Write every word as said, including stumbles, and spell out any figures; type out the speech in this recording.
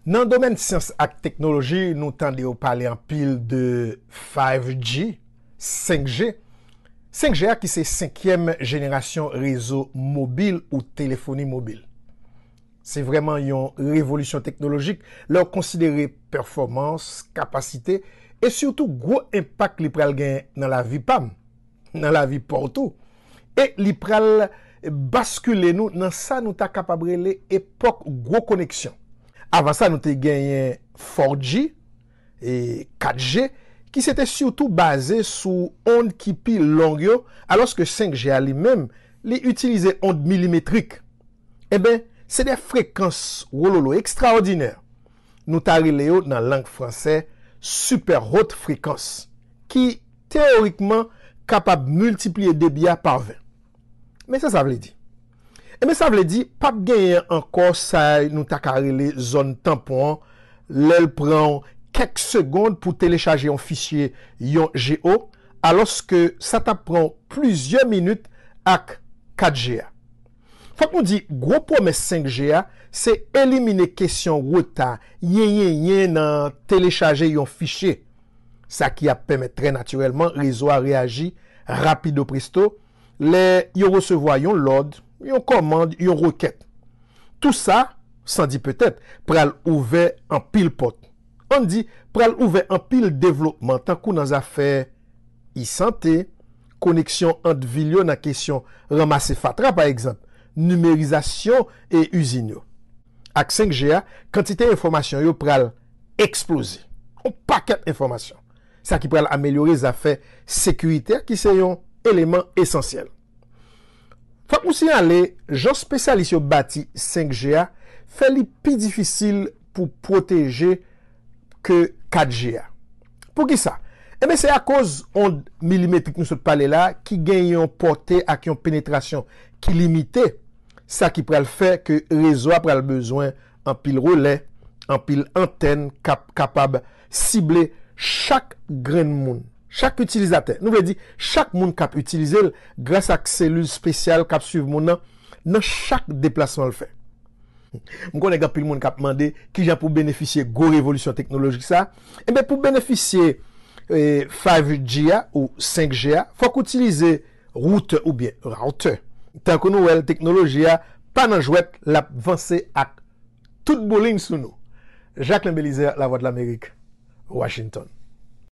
Nan domèn syans ak teknoloji, nou tande yo pale anpil de five G, senk G. Senk G a ki se senkyèm jenerasyon rezo mobil ou telefoni mobil. Se vrèman yon revolisyon teknolojik lè w konsidere pèfòmans, kapasite e sitou gwo enpak li pral gen nan lavi pa m, nan lavi pa w tou. E li pral baskile nou nan sa nou ta kapab rele epòk gwo koneksyon. Avan sa, nou te genyen four G e kat G, ki se te sitou baze sou onn ki pi long yo, alòske senk G a li menm, li itilize onn milimetrik. Enben, se de frekans wololo ekstraòdinè. Nou ta rele yo nan lang fransè super haute fréquence, ki teyorikman kapab miltipliye debi a pa ven. Men sa sa vle di? Enben, sa vle di p ap genyen ankò sa nou ta ka rele zòn tanpon an, lè l pran w kèk segonn pou telechaje yon fichye yon G O, alòske sa t ap pran w plizyè minit ak kat G a. Fòk nou di, gwo pwomès senk G a, se elimine kesyon reta, yenyenyen nan telechaje yon fichye. Sa ki ap pèmèt trè natirèlman rezo a reyaji rapido presto lè yo resevwa yon lòd, yon kòmand, yon rekèt. Tou sa, san di petèt, pral ouvè anpil pòt. Ann di, pral ouvè anpil devlopman, tankou nan zafè e-sante, koneksyon ant vil yo nan kesyon ranmase fatra, pa egzanp, nimerizasyon e izin yo. Ak senk G a, kantite enfòmasyon yo pral eksploze. Yon pakèt enfòmasyon. Sa ki pral amelyore zafè sekirite a, ki se yon eleman esansyèl. Fòk nou siyale, jan espesyalis yo bati senk G a fè li pi difisil pou pwoteje ke kat G a. Poukisa? Enben, se akoz onn milimetrik nou sot pale la, ki gen yon pòte ak yon penetrasyon ki limite, sa ki pral fè ke rezo a pral bezwen anpil relè, anpil antèn k ap kapab sible chak grenn moun, chak itilizatè. Nou vle di, chak moun k ap itilize l gras ak selil espesyal k ap swiv moun nan, nan chak deplasman l fè. M konnen gen anpil moun k ap mande kijan pou benefisye gwo revolisyon teknolojik sa. Enben, pou benefisye, eh, five G a ou senk G a, fòk ou itilize woutè oubyen rawtè. Tankou nou wè l, teknoloji a pa nan jwèt, l ap vanse ak tout boulin sou nou. Jacquelin Belizaire, Lavwadlamerik, Washington.